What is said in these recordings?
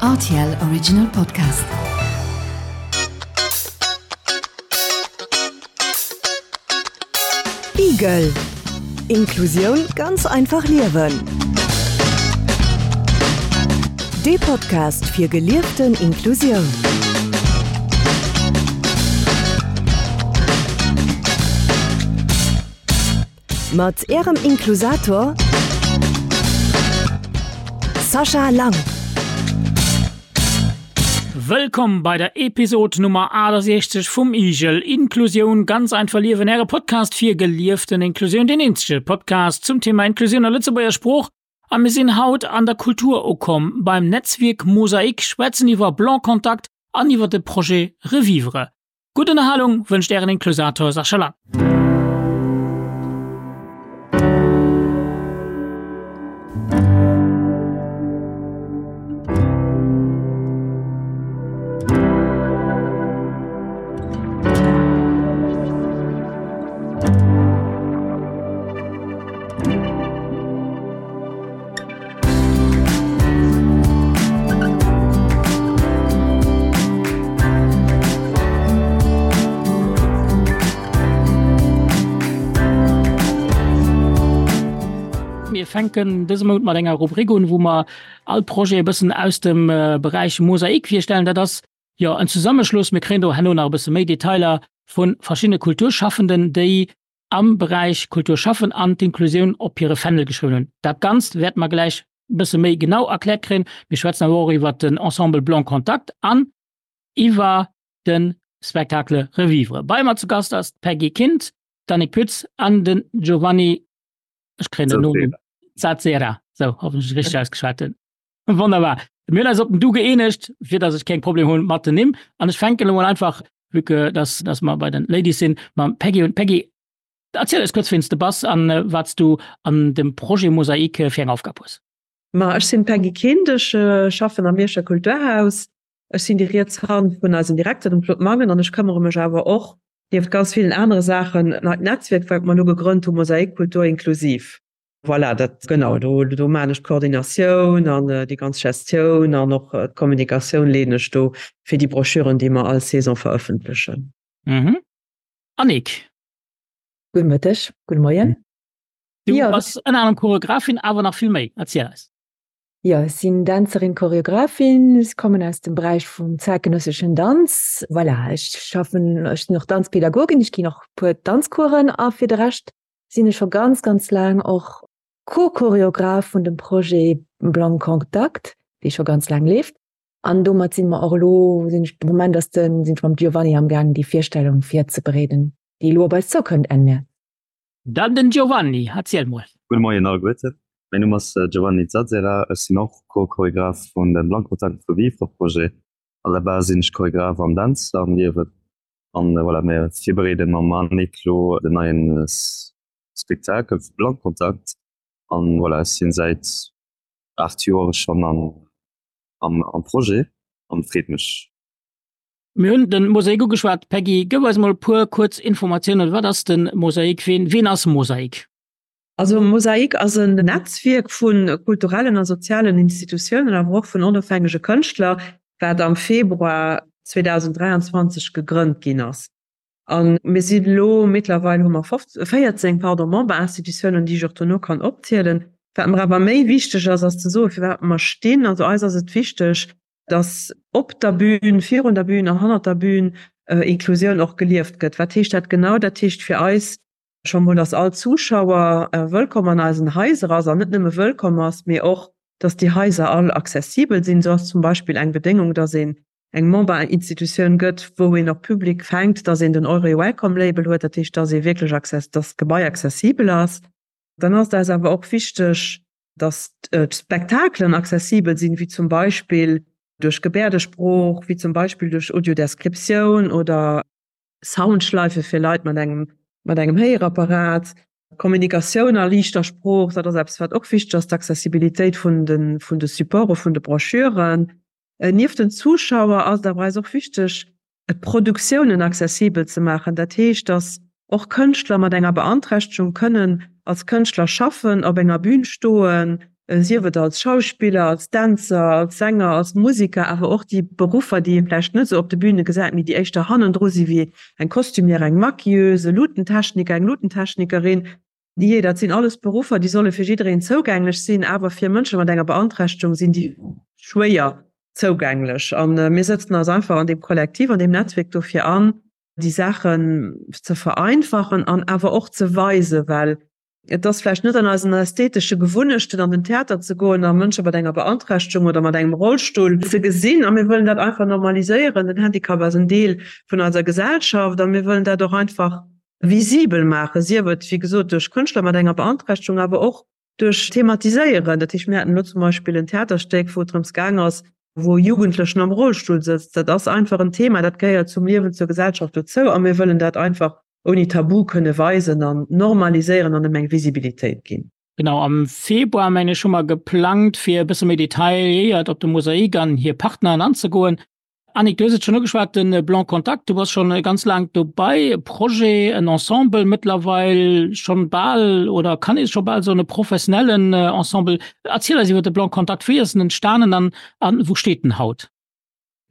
Rtl Original Podcast. Igel. Inklusioun ganz einfach liewen. Dee Podcast fir gelieften Inklusioun. Mat Ärem Inklusator Sascha Lang. Wëllkomm bei der Episod Nummer 68 vum Igel, Inklusioun ganz einfach liewen, Äre Podcast fir gelieften Inklusioun, deen eenzege Podcast zum Thema Inklusioun a Lëtzebuerger Sprooch. A mir sinn haut an der Kultur ukomm, beim Netzwierk Mosaik, schwätzen iwwer Blanc-Contact an iwwer de Projet Revivre. Gutt Ënnerhalung wënscht Ären Inklusator Sascha Lang. Mir fänken dëse Mount mat enger Rubrik un, wou mer all Projet e bëssen aus dem Beräich Mosaik virstellen. Dat ass jo en Zesammeschluss, mir kréien do herno nach e bësse méi Detailer, vu verschiddene Kulturschaffenden, déi am Beräich Kultur schaffen an d'Inklusioun op hire Fändel geschriwwen hunn. Dat Ganzt wäerte mer gläich e bësse méi genau erkläert kréien. Mir schwätzen awer och iwwert den Ensemble Blanc Contact an iwwer de Spectacle Revivre. Bei mer zu Gast ass d'Peggy Kind, d'Annick Pütz an den Giovanni, ech kréien den Nonumm, Zazzera, sou, hoffentlech richteg ausgeschwat hunn. Wonnerbar. Mir hunn eis op den Du gëeenegt, fir dass ech keng Problem hunn mat den Nimm. An ech fänken elo mol einfach, vue que dass, dass mer bei den Ladies sinn, mam Peggy un. Peggy, erziel eis kuerz, wien s de bass an wat s du an dem Projet Mosaik fir eng Aufgab hues. Ma ech sinn d'Peggy Kind, ech schaffen am Mierscher Kulturhaus. Ech sinn déi riets Hand vun eisem Direkter, dem Claude Mangen, an ech këmmere mech awer och, nieft ganz villen anere Saachen, neit Netzwierk, wat mer elo gegrënnt hu, Mosaik Kultur inklusiv. Voilà, dat genau, do, do maan ech d'Koordinatioun an déi ganz Gestioun an och d'Kommunikatioun leeden ech do fir déi Broschüren, déi mer all Saison verëffentlechen. Mhm. Annick. Gudde Mëtteg, gudde Moien. Du jo, bass ënner anerem Choreografin, awer nach vill méi. Erziel eis. Jo, ech sinn Dänzerin, Choreografin. Ech kommen aus dem Beräich vum zäitgenësseschen Danz. Voilà, ech schaffen, ech sinn och Danzpädagogin, ech ginn och puer Danzcoursen a fir de Rescht sinn ech scho ganz, ganz laang och Co-Choreograph vun dem Projet Blanc Contact, dee scho ganz laang leeft. An domat si mer och elo, sinn ech, de Moment ass den, sinn ech mam Giovanni am gaang déi Virstellung virzebereeden, déi elo op eis zoukënnt Enn Mäerz. Dann den Giovanni, erziel mol. Gudde Moien alleguerten, mäin Numm ass Giovanni Zazzera, ech sinn och Co-Choreograph vun dem Blanc Contact Revivre Projet. À la base sinn ech Choreograph an Dänzer am Liewen. An voilà, mir virbereeden mam Annick lo den neien Spektakel vu Blankontakt. An voilà, ech sinn säit 8 Joer schonn am am Projet an freet mech. Mir hunn den Mosaik ugeschwat. Peggy, gëff eis mol e puer kuerz Informatiounen. Wat ass den Mosaik? Ween ween ass Mosaik? Also Mosaik ass en Netzwierk vu kulturellen a sozialen Institutiounen, awer och vun onofhängege Kënschtler, wat am Februar 2023 gegrënnt ginn ass. A mir sinn elo, mittlerweil hu mer 14, pardon, Memberinstitutiounen, déi ech och dono kann opzielen. Wat mer awer méi wichteg ass, ass ze soen, firwat mer stinn. Also eis ass et wichteg, dass op der Bühn, virun der Bühn an hannert der Bühn Inklusioun och gelieft gëtt. Wat heescht dat genau? Dat heescht fir eis, Scho mol, dass all Zuschauer wëllkomm an eisen Haiser ass, an net nëmme wëllkomm ass, mee och, dass déi Haiser all accessibel sinn. Esou ass zum Beispill eng Bedéngung, dass een eng Memberinstitutioun gëtt, wou een och public fänkt, dass een den Eure Welcome Label huet, dat heescht, dass ee wierklech access, dass d'Gebai accessibel ass. Dann ass et eis awer och wichteg, dass d'Spektakelen accessibel sinn, wéi zum Beispill duerch Gebäerdesprooch, wéi zum Beispill duerch Audiodescriptioun oder Soundschleife fir Leit mat engem mat engem Héierapparat, Kommunikatioun a liichter Sprooch, dat ass eppes wat och wichteg ass, d'Accessibilitéit vun de vun de Supporte vun de Broschüren. Nieft den Zuschauer ass et awer eis och wichteg, d'Produktiounen accessibel ze maachen. Dat heescht, datt och Kënschtler mat enger Beanträchtegung kënnen als Kënschtler schaffen, op enger Bün stoen. Sief et als Schauspiller, als Dänzer, als Sänger, als Musiker, awer och déi Beruffer, déi ee vläicht net esou op de Büne gesäit, mee déi éischter hannendru si wéi eng Costumière, eng Maquilleuse, e Lutentechniker, eng Lutentechnikerin. Jee, dat sinn alles Beruffer, déi solle fir jiddereen zougänglech sinn, awer fir Mënsche mat enger Beanträchtegung sinn déi schwéier zougänglech. A mir sëtzen eis einfach an deem Kollektiv, an deem Netzwierk dofir an, déi Saachen ze vereinfachen an awer och ze weisen, well Et ass vläicht net an eisen ästhetesche Gewunnechten, an den Theater ze goen a Mënsche mat enger Beanträchtegung oder mat engem Rollstull ze gesinn. A mir wëllen dat einfach normaliséieren. Den Handicap ass en Deel vun eiser Gesellschaft a mir wëllen dat och einfach visibel maachen, sief et, wéi gesot, duerch Kënschtler mat enger Beanträchtegung, awer och duerch Thematiséieren. Dat heescht, mir haten elo zum Beispill en Theaterstéck, wou et drëms gaang ass, wou e Jugendlechen am Rollstull sëtzt. Dat ass einfach en Thema, dat gehéiert zum Liewen, zur Gesellschaft dozou a mir wëllen dat einfach ouni Tabu kënne weisen an normaliséieren an em eng Visibilitéit ginn. Genau, am Februar, mengen ech, hu mer geplangt, fir e bësse méi detailléiert op de Mosaik an hir Partneren anzegoen. Annick, du hues et schonn ugeschwat, de Blanc Contact, du bass schonn ganz laang dobei, e Projet, en Ensemble mëttlerweil schonn bal, oder kann ee scho bal soen, e professionellen Ensemble. Erziel eis iwwer de Blanc Contact, wéi ass en entstanen an wou steet en haut?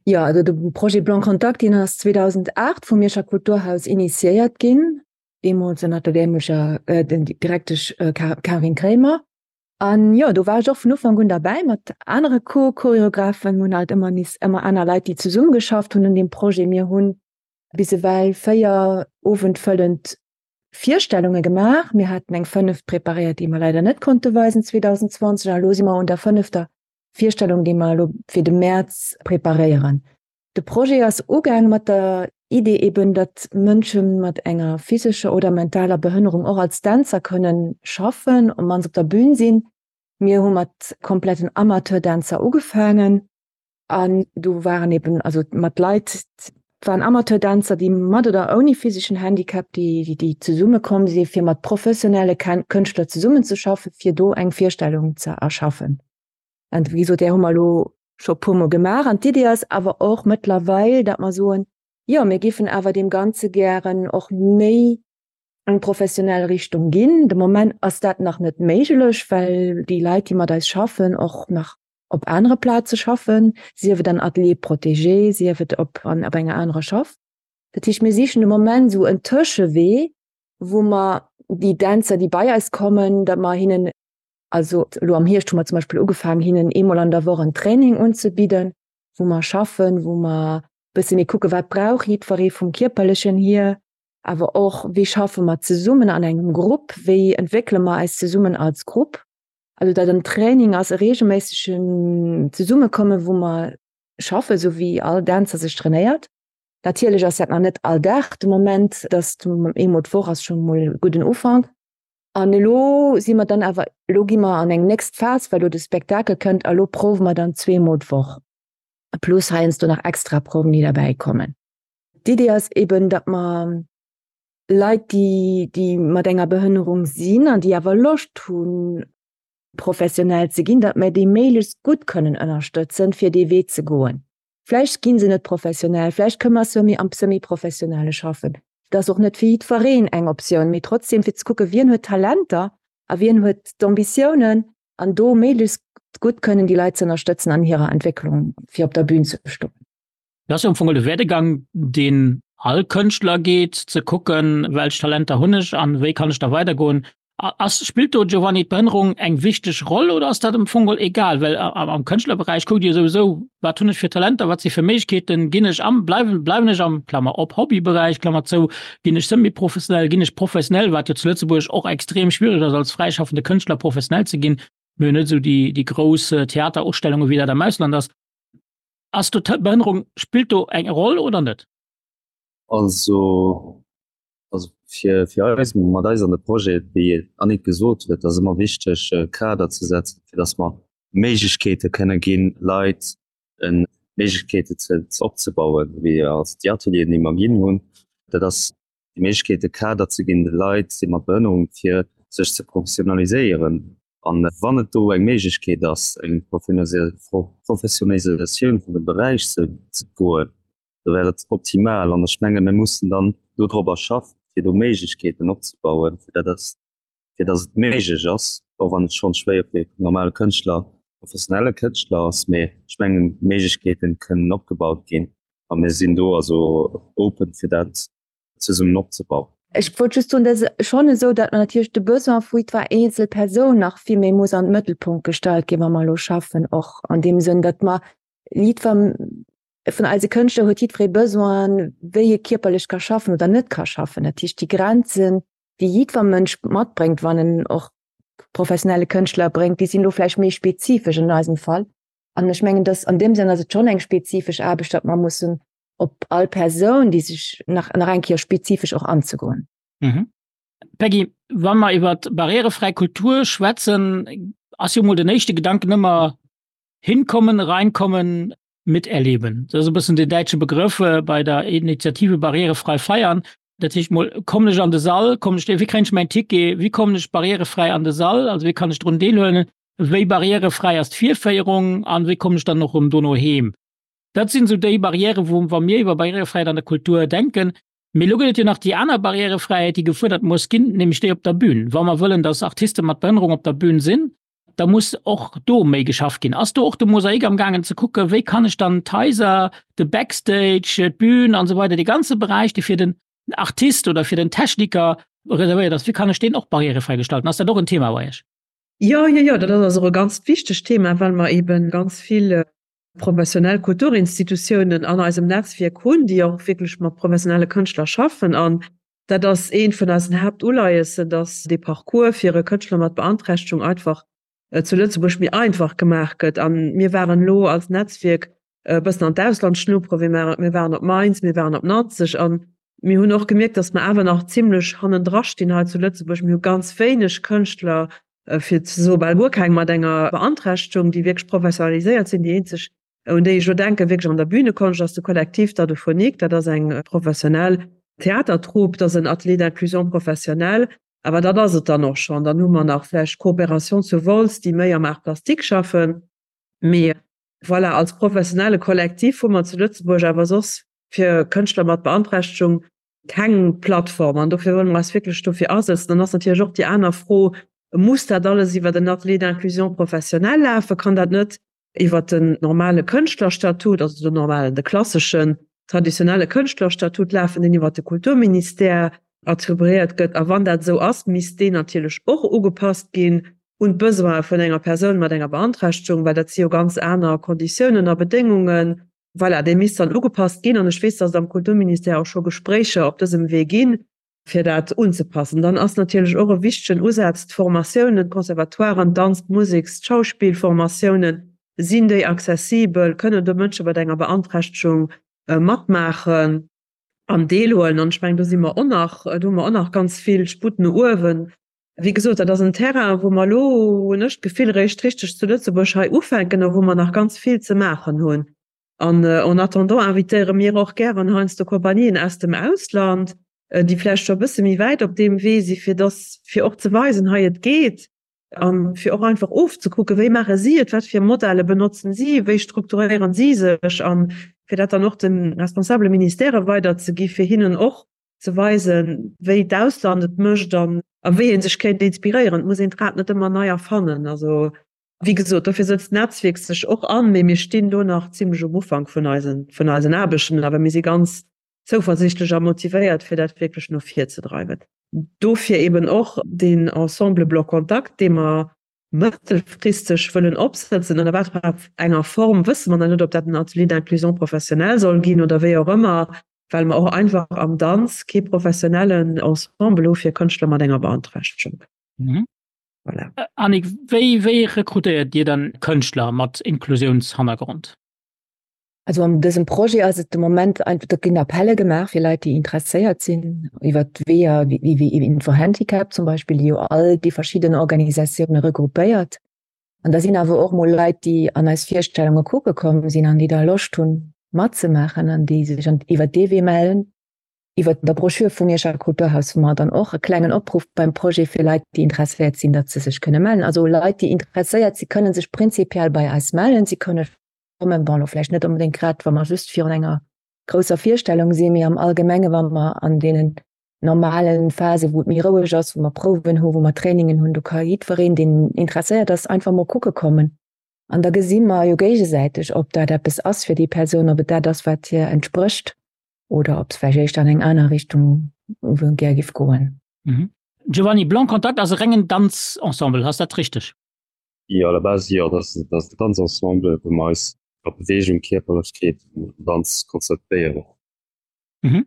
Jo, also de Projet Blanc Contact, deen ass 2008 vum Mierscher Kulturhaus initiéiert ginn, deemools ënner der dämlecher Direktesch Karin Kremer. An jo, do war ech och vun Ufank un derbäi mat anere Co-Choreographen. Mir hunn halt ëmmer nees ëmmer aner Leit, déi zesummegeschafft hunn un deem Projet. Mir hunn bis ewell 4 owendfëllend Virstellunge gemaach. Mir haten eng fënneft preparéiert, déi mer leider net konnte weisen 2020. A elo si mer un der fënnefter Virstellung, déi mer elo fir de Mäerz preparéieren. De Projet ass ugaang mat der Idee eben, datt Mënsche mat enger physescher oder mentaler Behënnerung och als Dänzer kënnen schaffen, op mannst op der Bühn sinn. Mir hu mat kompletten Amateurdänzer ugefaangen an do waren eben also mat Leit, et waren Amateurdänzer, déi mat oder ouni physeschen Handicap, déi déi zesumme komm si fir mat professionelle Kënschtler zesummenzeschaffen, fir do eng Virstellung ze erschaffen. An wéi gesot, där hu mer elo scho e puermol gemaach. An d'Idee ass awer och mëttlerweil, datt mer soen, jo, mir géifen awer deem Ganze gären och méi eng professionell Richtung ginn. De Moment ass dat nach net méiglech, well déi Leit, déi mat eis schaffen, och nach op anere Plaze schaffen, sief et an Ateliers protégés, sief et op an op enger anerer Schaff. Dat heescht, mir sichen de Moment esou en Tëschewee, wou mer déi Dänzer, déi bei eis kommen, datt mer hinnen Also elo am Hierscht hu mer zum Beispill ugefaangen, hinnen eemol an der Woch en Training unzebidden, wou mer schaffen, wou mer e bësse méi kucken, wat brauch jiddweree vum Kierperlechen hier, awer och, wéi schaffe mer zesummen an engem Grupp, wéi entwéckele mer eis zesummen als Grupp. Also datt en Training ass, e reegelméissegen Zesummekommen, wou mer schaffen, esou wéi all Dänzer sech trainéiert. Natierlech ass dat nach net all Dag de Moment, datt eemol d'Woch ass scho mol e gudden Ufank. An elo si mer dann awer, elo gi mer an eng nächst Phas, well elo de Spektakel kënnt a lo prouwe mer dann zweemol d'Woch, plus heiansdo nach extra Prouwen, déi derbäi kommen. D'Idee ass eben, datt mer Leit, déi, déi mat enger Behënnerung sinn an déi awer Loscht hunn, professionell ze ginn, datt mer déi méiglechst gutt kënnen ënnerstëtzen, fir dee Wee ze goen. Vläicht gi se net professionell, vläicht kënne mer semi am Semi-professionelle schaffen. Dat ass och net fir jiddwereen eng Optioun, mee trotzdem fir ze kucken, wien huet Talenter a wien huet d'Ambitiounen an do méiglechst gutt kënnen déi Leit ze ënnerstëtzen an hirer Entwécklung, fir op der Bühn ze stoen. Dat ass jo am Fong de Werdegang, deen all Kënschtler geet, ze kucken, welch Talenter hunn ech an wéi kann ech da weidergoen. Ass, spillt do, Giovanni, d'Behënnerung eng wichteg Roll oder ass dat am Fong geholl egal? Well am Kënschtlerberäich kuckt Dir souwisou, wat hunn ech fir Talenter, wat si fir Méiglechkeeten, ginn ech am, bleiwen, bleiwen ech am, Klammer op, Hobbyberäich, Klammer zou, ginn ech semi-professionell, ginn ech professionell, wat jo zu Lëtzebuerg och extrem schwiereg ass, als fräischaffende Kënschtler professionell ze ginn. Mir hunn net esou déi, déi grouss Theaterausstellungen, wéi dat am Ausland ass. Ass do d'Behënnerung, spillt do eng Roll oder net? Also, Also fir, fir eis, mat eis an de Projet, wéi d'Annick gesot huet, ass ëmmer wichteg, e Kader ze setzen, fir datt mer Méiglechkeete kënne ginn, Leit Méiglechkeete ze opzebauen, wéi also déi Atelieren, déi mer ginn hunn. Dat ass déi Méiglechkeet, e Kader ze ginn de Leit, déi mat Behënnerung, fir sech ze professionaliséieren. An wann et do eng Méiglechkeet ass, eng Professionalisatioun vun dem Beräich ze goen, da wär et optimal. An ech menge mir mussen dann dodropper schaffen, fir do Méiglechkeeten opzebauen, fir dat ass. fir datt et méiglech ass, och wann et schonn schwéier fir normale Kënschtler, professionelle Kënschtler ass, mee ech mengen d'Méiglechkeeten kënnen opgebaut ginn a mir sinn do also open fir dat zesummen opzebauen. Ech wollt just soen, dat ass schonn esou, datt mer natierlech de Besoin vu jiddwer eenzel Persoun nach vill méi muss an d'Mëttelpunkt gestallt ginn, wa mer elo schaffen, och an deem Sënn, datt mer jiddwer vun eise Kënschtler huet jiddweree Besoin, wéi e kierperlech ka schaffen oder net ka schaffen. Dat heescht, déi Grenzen, déi jiddwer Mënsch matbréngt, wann en och professionelle Kënschtler bréngt, déi sinn elo vläicht méi spezifesch an eisem Fall. An ech mengen, dass an deem Sënn ass et schonn eng spezifesch Aarbecht, datt mer mussen op all Persoun, déi sech nach, nach eng Kéier spezifesch och anzegoen. Mhm. Peggy, wa mer iwwer barrierefräi Kultur schwätzen, ass jo mol den éischte Gedanken ëmmer hinkommen, reinkommen, miterleben. Dat ass e bëssen den däitsche Begrëff äh, bei der Initiative Barrierefrei feiern. Dat heescht mol kommen ech an de Sall, kommen ech, wéi kréien ech mäin Ticket, wéi kommen ech barrierefräi an de Sall, also wéi kann ech drun deelhuelen, wéi barrierefräi ass d'Virféierung an wéi kommen ech dann och erëm dono heem. Dat sinn esou déi Barrièren, wou wa mir iwwer Barrierefräiheet an der Kultur denken. Mee elo gëtt et jo nach déi aner Barrierefräiheet, déi gefuerdert muss ginn, nämlech déi op der Bühn. Wa mer wëllen, dass Artiste mat Behënnerung op der Bühn sinn, da muss och do méi geschafft ginn. Ass do och de Mosaik am gaangen ze kucken, wéi kann ech dann d'Haiser, de Backstage, d'Bühn an esou weider, dee ganze Beräich, dee fir den Artist oder fir den Techniker reservéiert ass, wéi kann ech deen och barrierefräi gestalten? Ass dat och en Thema bei Iech? Jo, jo, jo, dat ass och e ganz wichtegt Thema, well mer eebe ganz vill professionell Kulturinstitutiounen an eisem Netzwierk hunn, déi och wierklech mat professionelle Kënschtler schaffen. An dat ass eent vun eisen Haaptuleiessen, dass dee Parcours fir e Kënschtler mat Beanträchtegung einfach zu Lëtzebuerg méi einfach gemaach gëtt. A mir waren elo als Netzwierk e bëssen an d'Ausland schnupperen, mir waren op Mainz, mir waren op Nanzeg a mir hunn och gemierkt, dass mer awer nach zimlech hannendra stinn hei zu Lëtzebuerg. Mir hu ganz wéineg Kënschtler, fir ze soe bal guer keng, mat enger Beanträchtegung, déi wierklech professionaliséiert sinn. Déi eenzeg, un déi ech elo denken, wierklech an der Bühnekonscht, ass de Collectif Dadophonik. Dat ass eng professionell Theatertrupp, dat ass en Atelier d'inclusion professionnelle. Awer dat ass et dann och schonn. Dann hu mer nach vläicht d'Coopération zu Wolz, déi méi am Art plastique schaffen. Mee voilà, als professionelle Kollektiv hu mer zu Lëtzebuerg awer soss fir Kënschtler mat Beanträchtegung keng Plattform an dofir wëlle mer eis wierklech dofir asetzen. Dann ass natierlech och déi aner Fro, Muss dat alles iwwer en Atelier d'inclusion professionnelle lafen? Kann dat net iwwer den normale Kënschtlerstatut, also den normalen, de klasseschen, traditionelle Kënschtlerstatut lafen, deen iwwer de Kulturministère attribuéiert gëtt? A wann dat esou ass, misst deen natierlech och ugepasst ginn un d'Besoine vun enger Persoun mat enger Beanträchtegung, well dat si jo ganz aner Konditiounen a Bedéngungen. Voilà, dee misst dann ugepasst ginn. An ech weess, dass et am Kulturministère och scho Gespréicher op dësem Wee ginn, fir dat unzepassen. Dann ass natierlech och e wichtegen Usaz d'Formatiounen, d'Conservatoiren, d'Danz-, d'Museks-, d'Schauspillformatiounen. Sinn déi accessibel? Kënnen do Mënsche mat enger Beanträchtegung matmaachen an deelhuelen? An ech mengen, do si mer och nach, do hu mer och nach ganz vill Sputt no uewen. Wéi gesot, dat ass en Terrain, wou mer elo, hunn ech d'Gefill, eréischt richteg zu Lëtzebuerg hei ufänken a wou mer nach ganz vill ze maachen hunn. An en attendant invitéiere mir och gären heiansdo Kompanien aus dem Ausland, déi vläicht scho e bësse méi wäit op deem Wee si, fir dass, fir och ze weisen, hei et geet, a fir och einfach ofzekucken, wéi maache si et, wat fir Modelle benotzen si, wéi strukturéieren si sech, a fir dat dann och de responsabele Ministèrë weiderzegi fir hinnen och ze weisen, wéi d'Ausland et mécht an a wéi ee sech kéint inspiréieren. Et muss een d'Rad net ëmmer nei erfannen. Also, wéi gesot, dofir sëtzt d'Netzwierk sech och an, mee mir stinn do nach zimlech um Ufank vun eisen, vun eisen Aarbechten. Awer mir si ganz zouversiichtlech a motivéiert, fir dat wierklech no vir ze dreiwen. Dofir eben och deen Ensemble Bloc Contact, dee mer mëttelfristeg wëllen opsëtzen, ënner wat fir enger Form wësse mer nach net, ob dat en Atelier d'inclusion professionnelle soll ginn oder wéi och ëmmer, well mer och einfach am Danz kee professionellen Ensemble hu fir Kënschtler mat enger Beanträchtegung. Mhm. Voilà. Annick, wéi, wéi rekrutéiert Dir dann Kënschtler mat Inklusiounshannergrond? Also an dësem Projet ass et de Moment einfach, do ginn Appelle gemaach fir Leit, déi interesséiert sinn, iwwer d'Weeër wéi wéi Info-Handicap zum Beispill, déi jo all déi verschidden Organisatioune regroupéiert. An da sinn awer och mol Leit, déi an eis Virstellunge kucke komm sinn an déi da Loscht hunn matzemaachen an déi sech an iwwer dee Wee mellen. Iwwer der Broschür vum Mierscher Kulturhaus hu mer dann och e klengen Opruff beim Projet fir Leit, déi interesséiert sinn, datt se sech kënne mellen. Also Leit, déi interesséiert si kënne sech prinzipiell bei eis mellen. Si kënne kommen, bon, elo vläicht net onbedéngt grad, wa mer just virun enger grousser Virstellung sinn, mee am Allgemenge wa mer an deenen. normalen Phase wou et méi roueg ass, wou mer Prouwen hu, wou mer Trainingen hunn, do ka jiddwereen, deen interesséiert ass, einfach mol kucke kommen. An da gesi mer jo géigesäiteg, ob dat eppes ass fir déi Persoun, ob et dat ass, wat hir entsprécht oder ob se vläicht éischter an eng aner Richtung gär giff goen. Mhm. Giovanni, Blanc Contact ass e rengen Danzensemble, ass dat richteg? Jo, à la base jo, dat ass e Danzensemble, wou mer eis op Beweegung, Kierperlechkeet an Danz konzentréieren. Mhm.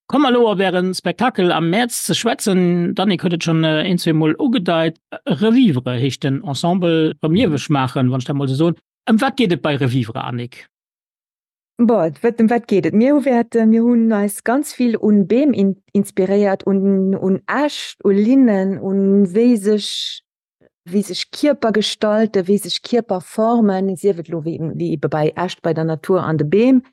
Komme mer elo op Äre Spektakel am Mäerz ze schwätzen. D'Annick huet et schonn een, zweemol ugedeit. Revivre heescht den Ensemble, erëm lieweg maachen, wann ech dat mol esou soen. Ëm wat geet et bei Revivre, Annick? Bon, ëm wat geet et? Mir hu wäerten, mir hunn eis ganz vill un Beem inspiréiert, un, un Äscht, u Linnen, un wéi sech, wéi sech Kierper gestalten, wéi sech Kierper formen, sief et elo wéi, wéi ebe bei Äscht, bei der Natur an de Beem,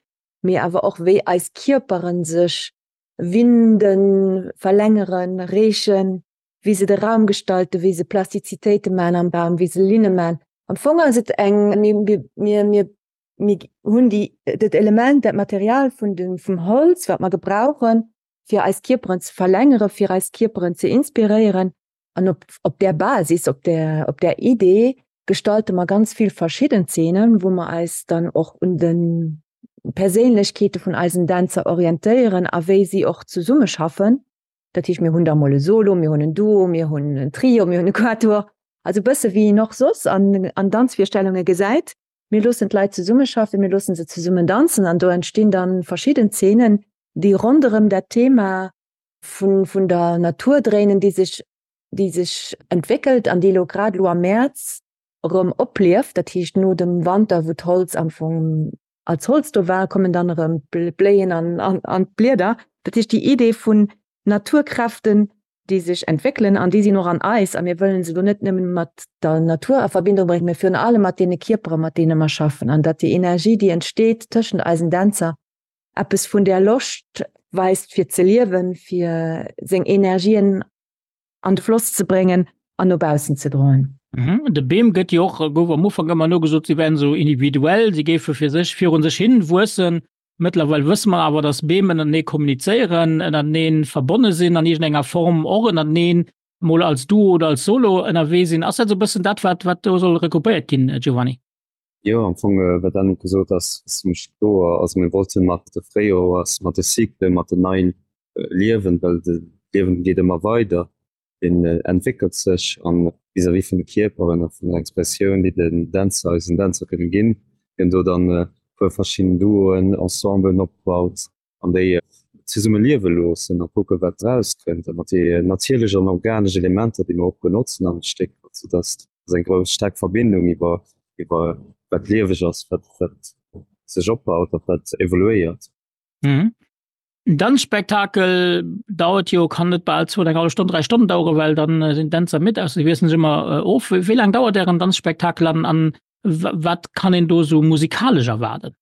mee awer och wéi eis Kierperen sech winden, verlängeren, reechen, wéi se de Raum gestalten, wéi se Plastizitéite man am Raum, wéi se Linne man. Am Fong ass et eng, mir, mir, mir mir hunn déi, dat Element, dat Material vun dem, vum Holz, wat mer gebrauchen, fir eis Kierperen ze verlängeren, fir eis Kierperen ze inspiréieren. An op, op där Basis, op där, op där Idee gestalte mer ganz vill verschidden Zeenen, wou mer eis dann och un de Perséinlechkeete vun eisen Dänzer orientéieren a wéi si och zesummeschaffen. Dat heescht, mir hunn da mol e Solo, mir hunn en Duo, mir hunn en Trio, mir hunn e Quatuor, also e bësse wéi een och soss an, an Danzvirstellunge gesäit. Mir loossen d'Leit zesummeschaffen, mir loossen se zesummen danzen an do entstinn dann verschidden Zeenen, déi ronderëm dat Thema vun, vun der Natur dréinen, déi sech, déi sech entwéckelt an déi elo grad elo am Mäerz erëm oplieft. Dat heescht no dem Wanter, wou d'Holz am Fong als Holz do war, kommen dann erëm d'Bléien an, an, an d'Blieder. Dat heescht déi Idee vun Naturkräften, déi sech entwéckelen an déi sinn och an eis a mir wëllen se elo net nëmmen mat der Natur a Verbindung bréngen, mä virun allem mat deene Kierpere mat deene mer schaffen an datt déi Energie, déi entsteet tëschent eisen Dänzer, eppes vun där Loscht weist fir ze liewen, fir seng Energien an de Floss ze bréngen an no baussen ze droen. De Beem gëtt jo och, gouf am Ufank ëmmer nogesot, si wären esou individuell, si géife fir sech virun sech hin wuessen. Mëttlerweil wësse mer awer, dass Beem ënnertenee kommunizéieren, ënnertenee verbonne sinn an iergendenger Form, och ënnerteneen mol als Duo oder als Solo ënnerwee sinn. Ass dat esou e bëssen dat, wat, wat do soll regroupéiert ginn, Giovanni? Jo, am Fong, wat d'Annick gesot ass, ass zimmlech kloer. Also mir wollte mat de Fréijoers, mat de Cyclen, mat den neien Liewen, well de Liewen geet ëmmer weider, deen entwéckelt sech an vis-à-vis vun de Kierperen a vun der Expressioun, déi den Dänzer, eisen Dänzer kënne ginn, déi do dann e puer verschidden Duoen, Ensemblen opbaut an déi zesumme liewe loossen a kucke wat erauskënnt a mat déi natierlech an organesch Elementer, déi mer och benotzen am Stéck, sou datt ass eng grouss staark Verbindung iwwer iwwer wat lieweg ass, wat wat sech opbaut a wat evoluéiert. Mhm. En Danzspektakel dauert jo, kann net bal zwou, eng hallef Stonn, 3 Stonnen daueren, well dann sinn d'Dänzer midd, ausser si wiesselen sech ëmmer of. Wéi laang dauert Ären Danzspektakel an an wat kann een do sou musikalesch erwaarden?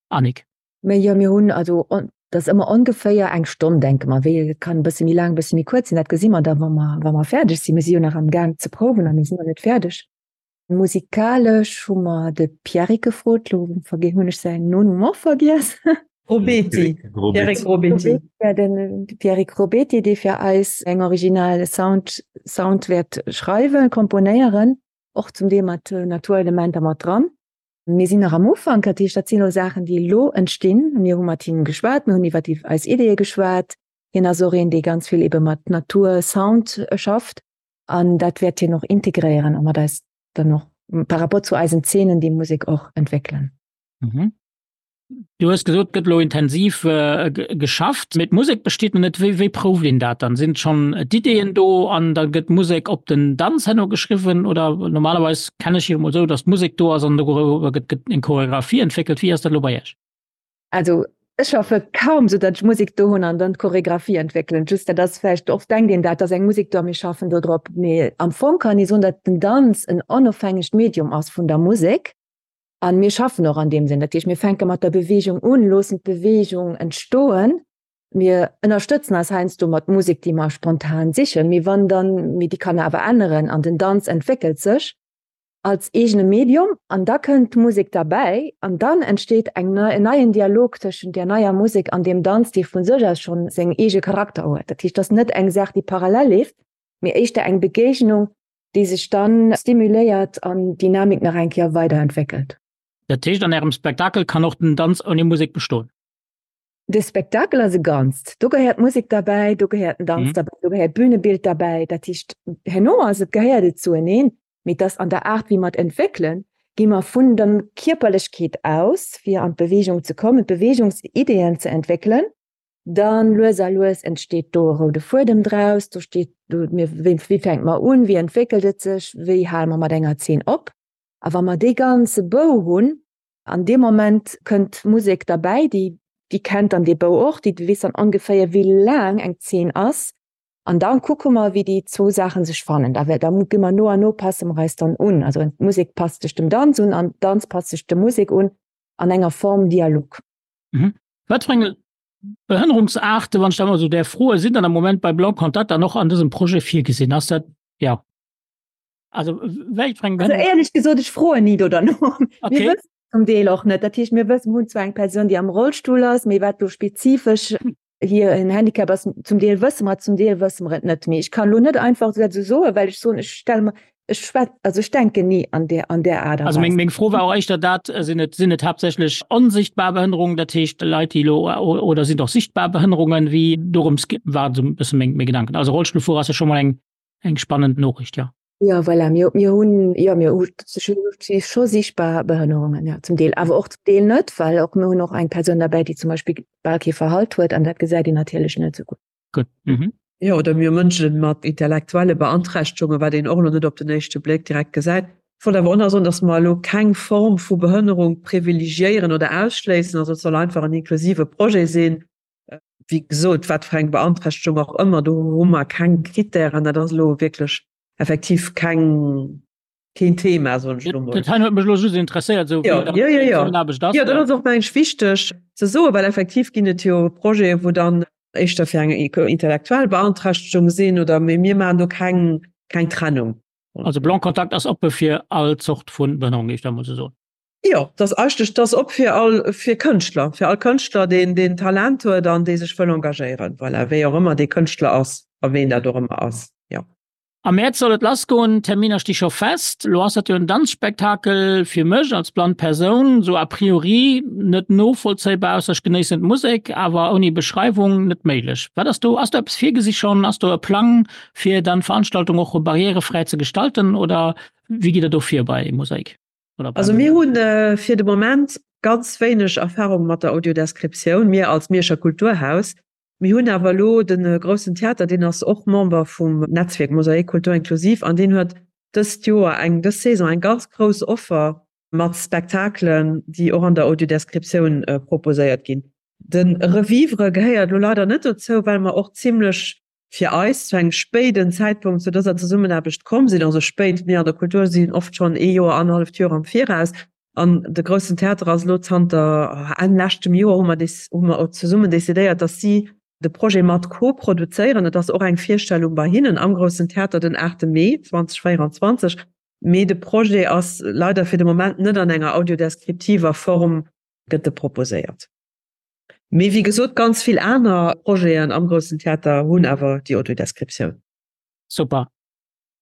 Annick. Mä jo, mir hunn also, dat ass ëmmer ongeféier eng Stonn, denke mer. Wéi, et kann e bësse méi laang, e bësse méi kuerz sinn, dat gesi mer da wa mer, wa mer fäerdeg sinn. Mir si jo nach am Gaang ze prouwen a mir sinn nach net fäerdeg. Musikalesch hu mer de Pierrick gefrot, lo hunn ech säin Nonumm och vergiess. Robeti, Pierrick Robeti. Ja, den Pierrick Robeti, dee fir eis eng original Sound, Sound wäert schreiwen, komponéieren, och zum Deel mat Naturelementer mat dran. Mir sinn nach am Ufank, dat heescht, dat sinn elo Saachen, déi elo entstinn. Mir hu mat him geschwat, mir hunn iwwer eis Ideeë geschwat. Hien ass och een, dee ganz vill ebe mat Natur, Sound schafft. An dat wäert hien och integréieren a mat eis dann och par rapport zu eisen Zeenen déi Musek och entwéckelen. Mhm. Du hues gesot, et gëtt elo intensiv geschafft, mee d'Musek besteet nach net. Wéi, wéi prouft een dat dann? Sinn schonn d'Ideeën do an da gëtt d'Musek op den Danz herno geschriwwen? Oder normalerweis kenne ech jo emol esou, datt d'Musek do ass an doriwwer gëtt eng Choreographie entwéckelt. Wéi ass dat elo bei Iech? Also ech schaffe kaum sou datt ech Musek do hunn an dann d'Choreographie entwéckelen. Just dat ass vläicht, oft denkt een dat, ass eng Musek do a mir schaffen do drop. Mee am Fong kann ee soen, datt den Danz en onofhängegt Medium ass vun der Musek an mir schaffen och an deem Sënn. Dat heescht, mir fänke mat der Beweegung un, loossen d'Beweegung entstoen. Mir ënnerstëtzen eis heiansdo mat Musek, déi mer spontan sichen, mee wann dann, mee déi kann awer änneren an den Danz entwéckelt sech. Als eegene Medium an da kënnt d'Musek derbäi an dann entsteet eng nei, en neien Dialog tëschent där neier Musek an deem Danz, dee vu sech aus schonn seng eege Charakter huet. Dat heescht, et ass net eng Saach, déi parallel leeft, mee éischter eng Begéignung, déi sech dann stimuléiert an d'Dynamik nach eng Kéier weiderentwéckelt. Dat heescht, an Ärem Spektakel kann och den Danz ouni Musek bestoen? De Spektakel ass e Ganzt. Do gehéiert d'Musek derbäi, do gehéiert den Danz derbäi, do gehéiert d'Bünebild derbäi. Dat heescht, herno ass et, gehéiert et zueneen. Mee et ass an der Aart, wéi mer et entwéckelen, gi mer vun der Kierperlechkeet aus, fir an d'Beweegung ze kommen, d'Beweegungsideeën ze entwéckelen. Dann lues a lues entsteet do e roude Fuedem draus. Do steet do, mir, wéi, wéi fänke mer un, wéi entwéckelt et sech, wéi hale mer mat enger Zeen op. A wa mer dee ganze Bou hunn, an deem Moment kënnt d'Musek derbäi, déi, déi kennt dann dee Bou och, déi weess dann ongeféier, wéi laang eng Zeen ass. An da kucke mer, wéi déi zwou Saache sech fannen. Da da gi mer no an no passe mer eis dann un. Also d'Musek passt sech dem Danz un an Danz passt sech der Musek un an enger Form Dialog. Mhm. Wat fir eng Behënnerungsaarte, wann ech dat mol esou däerf froen, sinn dann am Moment bei Blanc Contact dann och an dësem Projet virgesinn? Ass dat, jo. Also wéi fir eng Behënnerungs. Also éierlech gesot, ech froen ni do derno. Okay. Mir wëssen zum Deel och net. Dat heescht, mir wëssen, mir hunn zwar eng Persoun, déi am Rollstull ass, mee wat do spezifesch hir en Handicap ass, zum Deel wësse mer et, zum Deel wësse mer et net. Mee ech kann elo net einfach dat esou soen, well ech soen, ech stelle mer, ech schwät, also ech denken ni an där, an där Aart a Also meng, meng Fro war och éischter dat, sinn et, sinn et haaptsächlech onsichtbar Behënnerungen, dat heescht Leit, déi elo, oder sinn et och sichtbar Behënnerungen, wéi dorëms war esou e bësse meng, meng Gedanken. Also Rollstullfuerer ass jo scho mol eng, eng spannend Noriicht, jo. Jo, voilà, mir, mir hunn, jo, mir hu scho sichtbar Behënnerungen, jo, zum Deel, awer och zum Deel net, well och mir hunn och eng Persoun derbäi, déi zum Beispill bal kee Verhalt huet an dat gesäit een natierlech net esou gutt. Gutt, mhm. Jo, oder mir hu Mënsche mat intellektuelle Beanträchtegungen, wat een och elo net op den éischte Bléck direkt gesäit. Ech wollt awer och nach soen, datt mer elo keng Form vu Behënnerung privilegiéieren oder ausschléissen. Also et soll einfach en inklusive Projet sinn. Wéi gesot, wat fir eng Beanträchtegung och ëmmer, do hu mer keng Krittären. Dat ass elo wierklech effektiv keng, keen Thema, soen ech elo mol. Dat hei huet mech elo just interesséiert, esou wéi dat Zesummenaarbecht ass. Jo, dat ass och, meng ech, wichteg ze soen, well effektiv ginn et jo Projeten, wou dann éischter fir eng intellektuell Beanträchtegung sinn oder, mee mir maachen do keng, keng Trennung. Also Blanc Contact ass oppe fir all Zort vu Behënnerung, géif ech da mol esou soen. Jo, dat ass eigentlech, dat ass op fir all, fir Kënschtler, fir all Kënschtler, deen, deen Talent huet an dee sech wëll engagéieren. Voilà, wéi och ëmmer dee Kënschtler ass a ween dat och ëmmer ass, jo. Am Mäerz soll et lassgoen, d'Terminer sti scho fest. Lo ass dat jo en Danzspektakel, fir mech als blann Persoun sou a priori net novollzéibar, ausser ech genéissen d'Musek, awer ouni Beschreiwung net méiglech. Wat ass do, ass do eppes virgesi schonn? Ass do e Plang fir dann d'Veranstaltung och barrièrefräi ze gestalten oder wéi gitt der do vir bei Mosaik? Also mir hunn fir de Moment ganz wéineg Erfahrung mat der Audiodescriptioun, mir als Mierscher Kulturhaus. Mir hunn awer elo de Groussen Theater, deen ass och Member vum Netzwierk Mosaik Kultur Inklusiv an deen huet dëst Joer eng, dës Saison eng ganz grouss Offer mat Spektakelen, déi och an der Audiodescriptioun proposéiert ginn. De Revivre gehéiert elo leider net dozou, well mer och zimlech fir eis zu engem spéiden Zäitpunkt zu dëser Zesummenaarbecht komm sinn, also spéit, mir an der Kultur sinn oft schonn ee Joer, annerhalleft Joer am Viraus, an de Groussen Theater ass elo zanter Enn leschtem Joer, hu mer hu mer zesummen decidéiert, datt si de Projet mat koproduzéieren. Et ass och eng Virstellung bei hinnen am Groussen Theater den 8 Mee 2024, mee de Projet ass leider fir de Moment net an enger audiodeskriptiver Form gëtt e proposéiert. Mee wéi gesot, ganz vill aner Projeten am Groussen Theater hunn awer déi Audiodescriptioun. Super.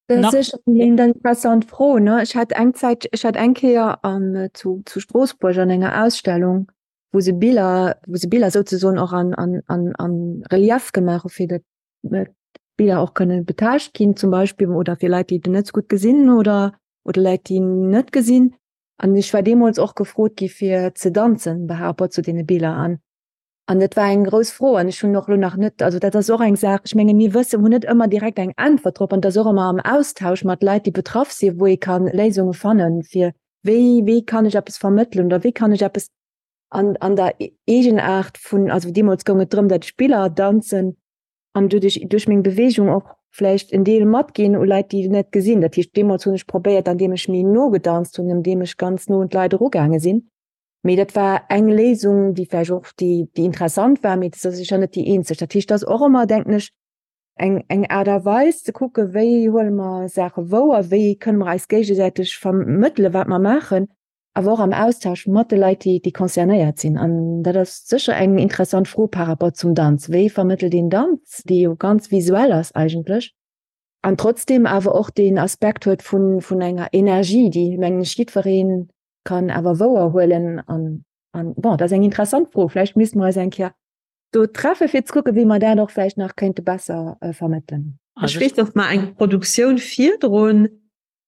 Dat ass sécher eng interessant Fro, ne? Ech hat eng Zäit, ech hat eng Kéier an zu zu Stroossbuerg an enger Ausstellung, wou se Biller, wou se Biller souzesoen och an an an an Relief gemaach hu fir datt d'Biller och kënne betaascht ginn zum Beispill oder fir Leit, déi net sou gutt gesinn oder oder Leit, déi net gesinn. An ech war deemools och gefrot gi fir ze danzen par rapport zu deene Biller. An, an dat war eng grouss Fro an ech hunn och elo nach net, also dat ass och eng Saach, ech menge mir wëssen, hunn net ëmmer direkt eng Äntwert drop an et ass och ëmmer am Austausch mat Leit, déi betraff sinn, wou ee ka Léisunge fannen, fir wéi, wéi kann ech eppes vermëttelen oder wéi kann ech eppes an, an der Eegenaart vun, also deemools goung et drëm, datt ech Biller danzen, an doduerch duerch meng Beweegung och vläicht en Deel matginn u Leit, déi net gesinn. Dat heescht, deemools hunn ech probéiert, andeem ech méi no gedanzt hunn, andeem ech ganz no un d'Leit erugaange sinn. Mee dat war eng Léisung, déi vläicht och déi, déi interessant war, mee dat ass sécher net déi eenzeg. Dat heescht, dat ass och ëmmer, denken ech, eng, eng Aart a Weis ze kucke wéi huele mer Saache wouer, wéi kënne mer eis géigesäiteg vermëttele wat mer maachen, awer och am Austausch mat de Leit, déi, déi concernéiert sinn. An dat ass sécher eng interessant Fro par rapport zum Danz. Wéi vermëttelt een Danz, dee jo ganz visuell ass eigentlech, an trotzdem awer och deen Aspekt huet vun, vun enger Energie, déi, mengen ech, jiddweree kann awer wouer huelen. An, an bon, dat ass eng interessant Fro. Vläicht misste mer eis eng Kéier do treffe fir ze kucke wéi mer dat och vläicht nach kéinte besser vermëttelen. Ech weess, datt mer eng Produktioun virdrun,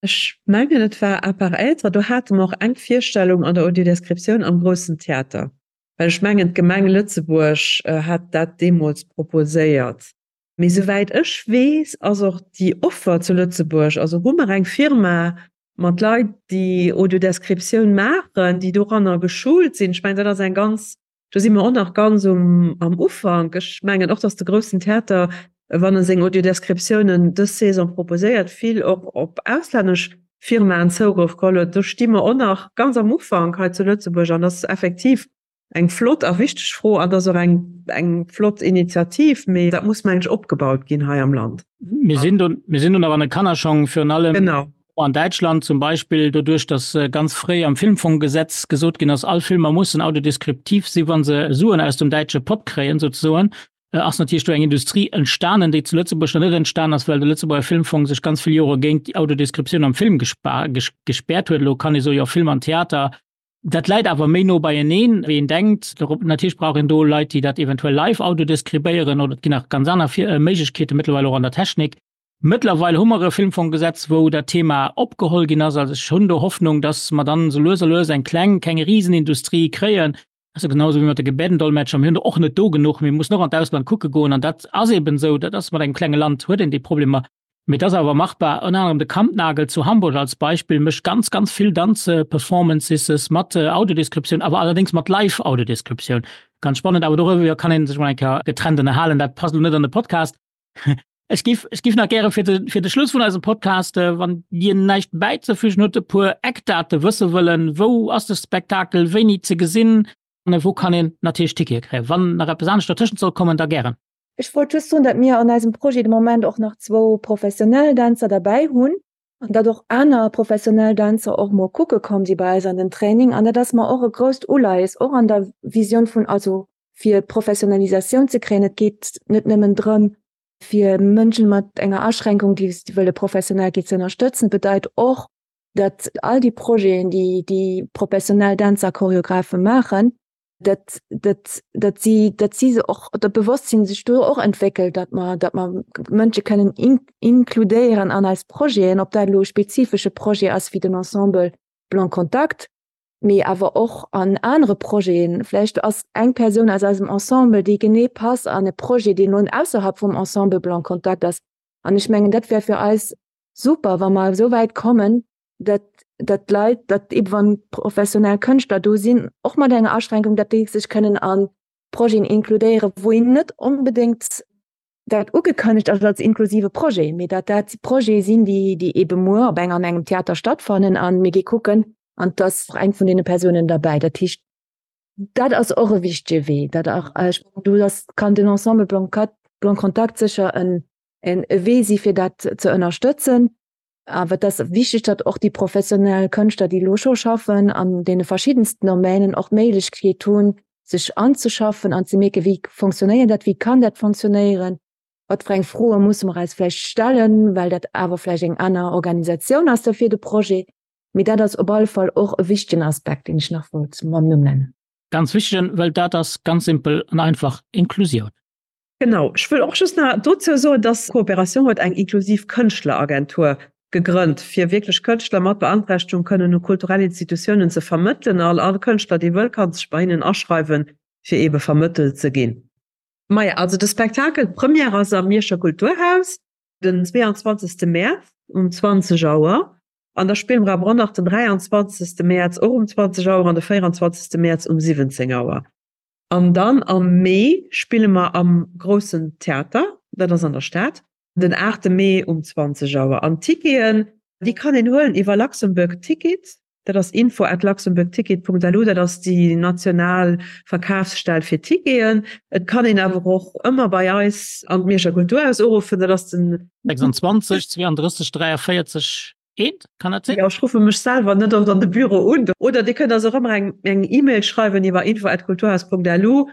ech mengen et war À part être, do hate mer och eng Virstellung an der Audiodescriptioun am Groussen Theater, well ech mengen d'Gemeng Lëtzebuerg hat dat deemools proposéiert. Mee souwäit ech weess, ass och déi Offer zu Lëtzebuerg, also hu mer eng Firma mat Leit, déi Audiodescriptioun maachen, déi doranner geschult sinn. Ech mengen, dat ass eng ganz, do si mer och nach ganz um, am Ufank. Ech mengen och, datt de Groussen Theater, wann e seng Audiodescriptiounen dës Saison proposéiert, vill och op auslännesch Firmaen Zougrëff geholl huet. Do sti mer och nach ganz am Ufank hei zu Lëtzebuerg an dat ass effektiv Eng flott a wichteg Fro an ass och eng eng flott Initiativ, mee dat muss mengen ech opgebaut ginn hei am Land. Mir sinn do, mir sinn do nach an de Kannerschong, virun allem genau. an Däitschland zum Beispill, doduerch datt ganz fréi am Filmfonggesetz gesot ginn ass, all Filmer mussen audiodeskriptiv si wa se Suen aus dem däitsche Pott kréien souzesoen, ass natierlech do eng Industrie entstanen, déi zu Lëtzebuerg nach net entstan ass, well de Lëtzebuerger Filmfong sech ganz vill Jore géint déi Audiodeskriptioun am Film gespäert huet. Elo kann ee soen, jo Film an Theater, Dat läit awer méi no beieneen, wéi een denkt. Natierlech brauch een do Leit, déi dat eventuell live audiodeskribéieren, oder et ginn nach ganz aner Méiglechkeete mëttlerweil och an der Technik. Mëttlerweil hu mer e Filmfonggesetz, wou dat Thema opgeholl ginn ass. Also ech hunn do Hoffnung, dass mer dann esou lues a lues eng kleng, keng Risenindustrie kréien. Dat ass jo genau esou wéi mat de Gebärdendolmetscher. Mir hunn der och net do genuch. Mir mussen och an d'Ausland kucke goen. An dat ass eben esou. Dat ass mat engem klenge Land huet een déi Problemer. Mee et ass awer machbar. Ënner anerem de Kampnagel zu Hamburg als Beispill mécht ganz, ganz vill Danzperformances mat Audiodescriptioun, awer allerdéngs mat Live-Audiodescriptioun. Ganz spannend, awer doriwwer kann ee sech mol eng Kéier getrennt ënnerhalen. Dat passt elo net an de Podcast. Ech giff, ech giff nach gäre fir de, fir de Schluss vun eisem Podcast, wann Dir näischt bäizefügen hutt, e puer Eckdate wësse wëllen. Wou ass de Spektakel wéini ze gesinn an wou kann een natierlech Tickete kréien? Wann nach eppes anescht dertëschent soll kommen, da gären. Ech wollt just soen, datt mir an eisem Projet de Moment och nach zwou professionell Dänzer derbäi hunn an datt och aner professionell Dänzer och mol kucke komm si bei eis an den Training. An dat ass mer och e grousst Uleies, och an der Visioun vun, also fir Professionalisatioun ze kréien. Et geet net nëmmen drëm, fir Mënschen mat enger Aschränkung, déi wëlle professionell ginn, ze ënnerstëtzen. Et bedeit och, datt all déi Projeten, déi déi professionell Dänzer a Choreographe maachen, dat, dat, dat si, dat si se och dat Bewosstsinn sech do och entwéckelt, dat mer, dat mer Mënsche kënnen in, inkludéieren an eis Projeten, ob dat elo e spezifesche Projet ass wéi den Ensemble Blanc Contact, mee awer och an anere Projeten. Vläicht ass eng Persoun aus eisem Ensemble, déi genee passt an e Projet, deen elo ausserhalb vum Ensemble Blanc Contact ass. An ech mengen, dat wär fir eis super, wa mer esou wäit kommen, dat dat d'Leit, dat eben wann professionell Kënschtler do sinn, och mat enger Aschränkung, dat déi sech kënnen a Projeten inkludéieren, wou een net onbedéngt dat ugekënnegt ass als inklusive Projet, mee dat dat Projete sinn, déi déi ebe muer op eng an engem Theater stattfannen a mir gi kucken an et ass och eng vun deene Persounen derbäi. Dat heescht, dat ass och e wichtege Wee, dat och, ech mengen, do ass kann den Ensemble Blanc Contact sécher en en e Wee si fir dat ze ënnerstëtzen. Awer et ass wichteg, datt och déi professionell Kënschtler, déi elo scho schaffen an deene verschiddensten Domänen, och d'Méiglechkeet hunn, sech anzeschaffen an ze mierken, wéi fonctionnéiert dat, wéi kann dat fonctionnéieren, wat fir eng Froe musse mer eis vläicht stellen, well dat awer vläicht eng aner Organisatioun ass da fir de Projet. Mee dat ass op alle Fall och e wichtegen Aspekt, deen ech nach wollt mam Numm nennen. Ganz wichtegen, well dat ass ganz simpel an einfach Inklusioun. Genau, ech wëll och just nach dozou soen, dass d'Coopération huet eng inklusiv Kënschtler-Agentur gegrënnt, fir wierklech Kënschtler mat Beanträchtegung kënnen u kulturell Institutiounen ze vermëttelen. All all Kënschtler, dee wëll, ka sech bei hinnen aschreiwen, fir eebe vermëttelt ze ginn. Maja, also de Spektakel, d'Première ass am Mierscher Kulturhaus den 22. Mäerz um 20 Auer. An da spille mer awer och nach den 23. Mäerz och um 20 Auer an de 24. Mäerz um 17 Auer. An dann am Mee spille mer am Groussen Theater, dat ass an der Stad, den 8 Mee um 20 Auer. An d'Ticketen, déi kann een huelen iwwer Luxembourg Ticket. Dat ass info at luxembourgticket.lu, dat ass déi national Verkafsstell fir Ticketen. Et kann een awer och ëmmer bei eis an d'Mierscher Kulturhaus uruffen, dat ass den. 26 32 43 1, kann dat sinn? Jo, ech ruffe mech selwer net oft an de Büro un. Oder Dir kënnt eis och ëmmer eng eng E-Mail schreiwen iwwer info at kulturhaus.lu.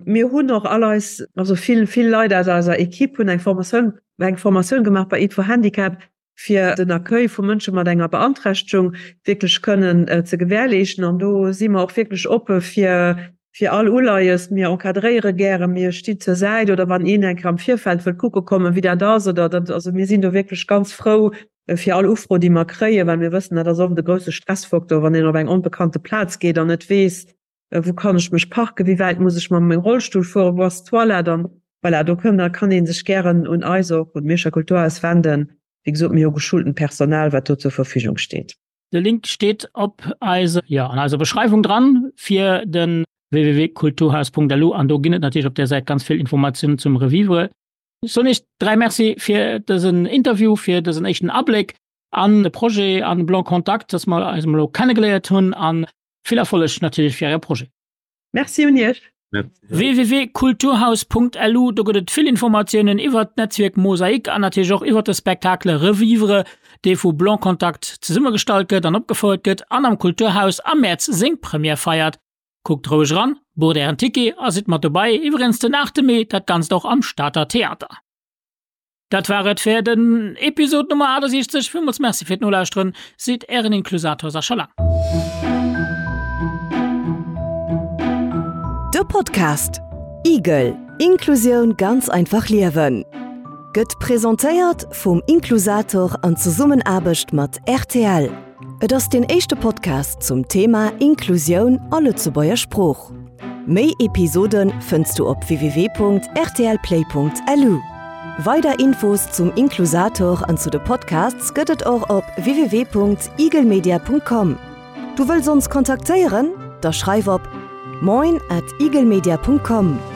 Mir hunn och all eis, also vill, vill Leit aus eiser Equipe hunn eng Formatioun, eng Formatioun gemaach bei Aid for Handicap, fir den Accueil vu Mënsche mat enger Beanträchtegung wierklech kënnen ze gewährleeschten. An do si mer och wierklech oppe fir, fir all Uleies. Mir encadréiere gären, mir stinn zur Säit oder wann een eng Kéier am Virfeld wëllt kucke kommen, wéi dat ass oder dat, also mir sinn do wierklech ganz frou fir all Ufro, déi mer kréien, well mir wëssen, dat ass oft e grousse Stressfaktor, wann een op eng onbekannte Plaz geet an net weess, wou kann ech mech parken, wéi wäit muss ech mam mengem Rollstull fueren, wou ass d'Toilette an voilà, do kënn, da kann ee sech gären un eis och, un d'Mierscher Kulturhaus wenden. Wéi gesot, mir hu geschultent Personal, wat do zur Verfügung steet. De Link steet op eise, jo, an eiser Beschreiwung dran fir de www.kulturhaus.lu an do ginn et natierlech op där Säit ganz vill Informatiounen zum Revivre. Ech soen Iech 3 Merci fir dësen Interview, fir dësen éischten Abléck an de Projet an Blanc Contact, dass mer eis emol elo kennegeléiert hunn an Vill Erfolleg natierlech fir Äre Projet. Merci un Iech. www.kulturhaus.lu, do gëtt et vill Informatiounen iwwert d'Netzwierk Mosaik an natierlech och iwwert de Spectacle Revivre, dee vu Blanc Contact zesummegestallt gëtt an opgefouert gëtt an am Kulturhaus am Mäerz seng Première feiert. Kuckt roueg eran, bucht Ären Ticket a sidd mat dobei, iwwregens den 8 Mee dat Ganzt och am Stater Theater. Dat war et fir den Episode Nummer 68. Villmools Merci fir d'Nolauschteren, seet Ären Inklusator Sascha Lang. De Podcast Igel, Inklusioun ganz einfach liewen gëtt presentéiert vum Inklusator an Zesummenaarbecht mat rtl. Et ass deen éischte Podcast zum Thema Inklusioun a Lëtzebuerger Sprooch. Méi Episode fënns du op www.rtlplay.lu. Weider Infos zum Inklusator an zu de Podcasts gëtt et och op www.igelmedia.com. Du wëlls ons kontaktéieren? Da schreif op moin at igelmedia.com.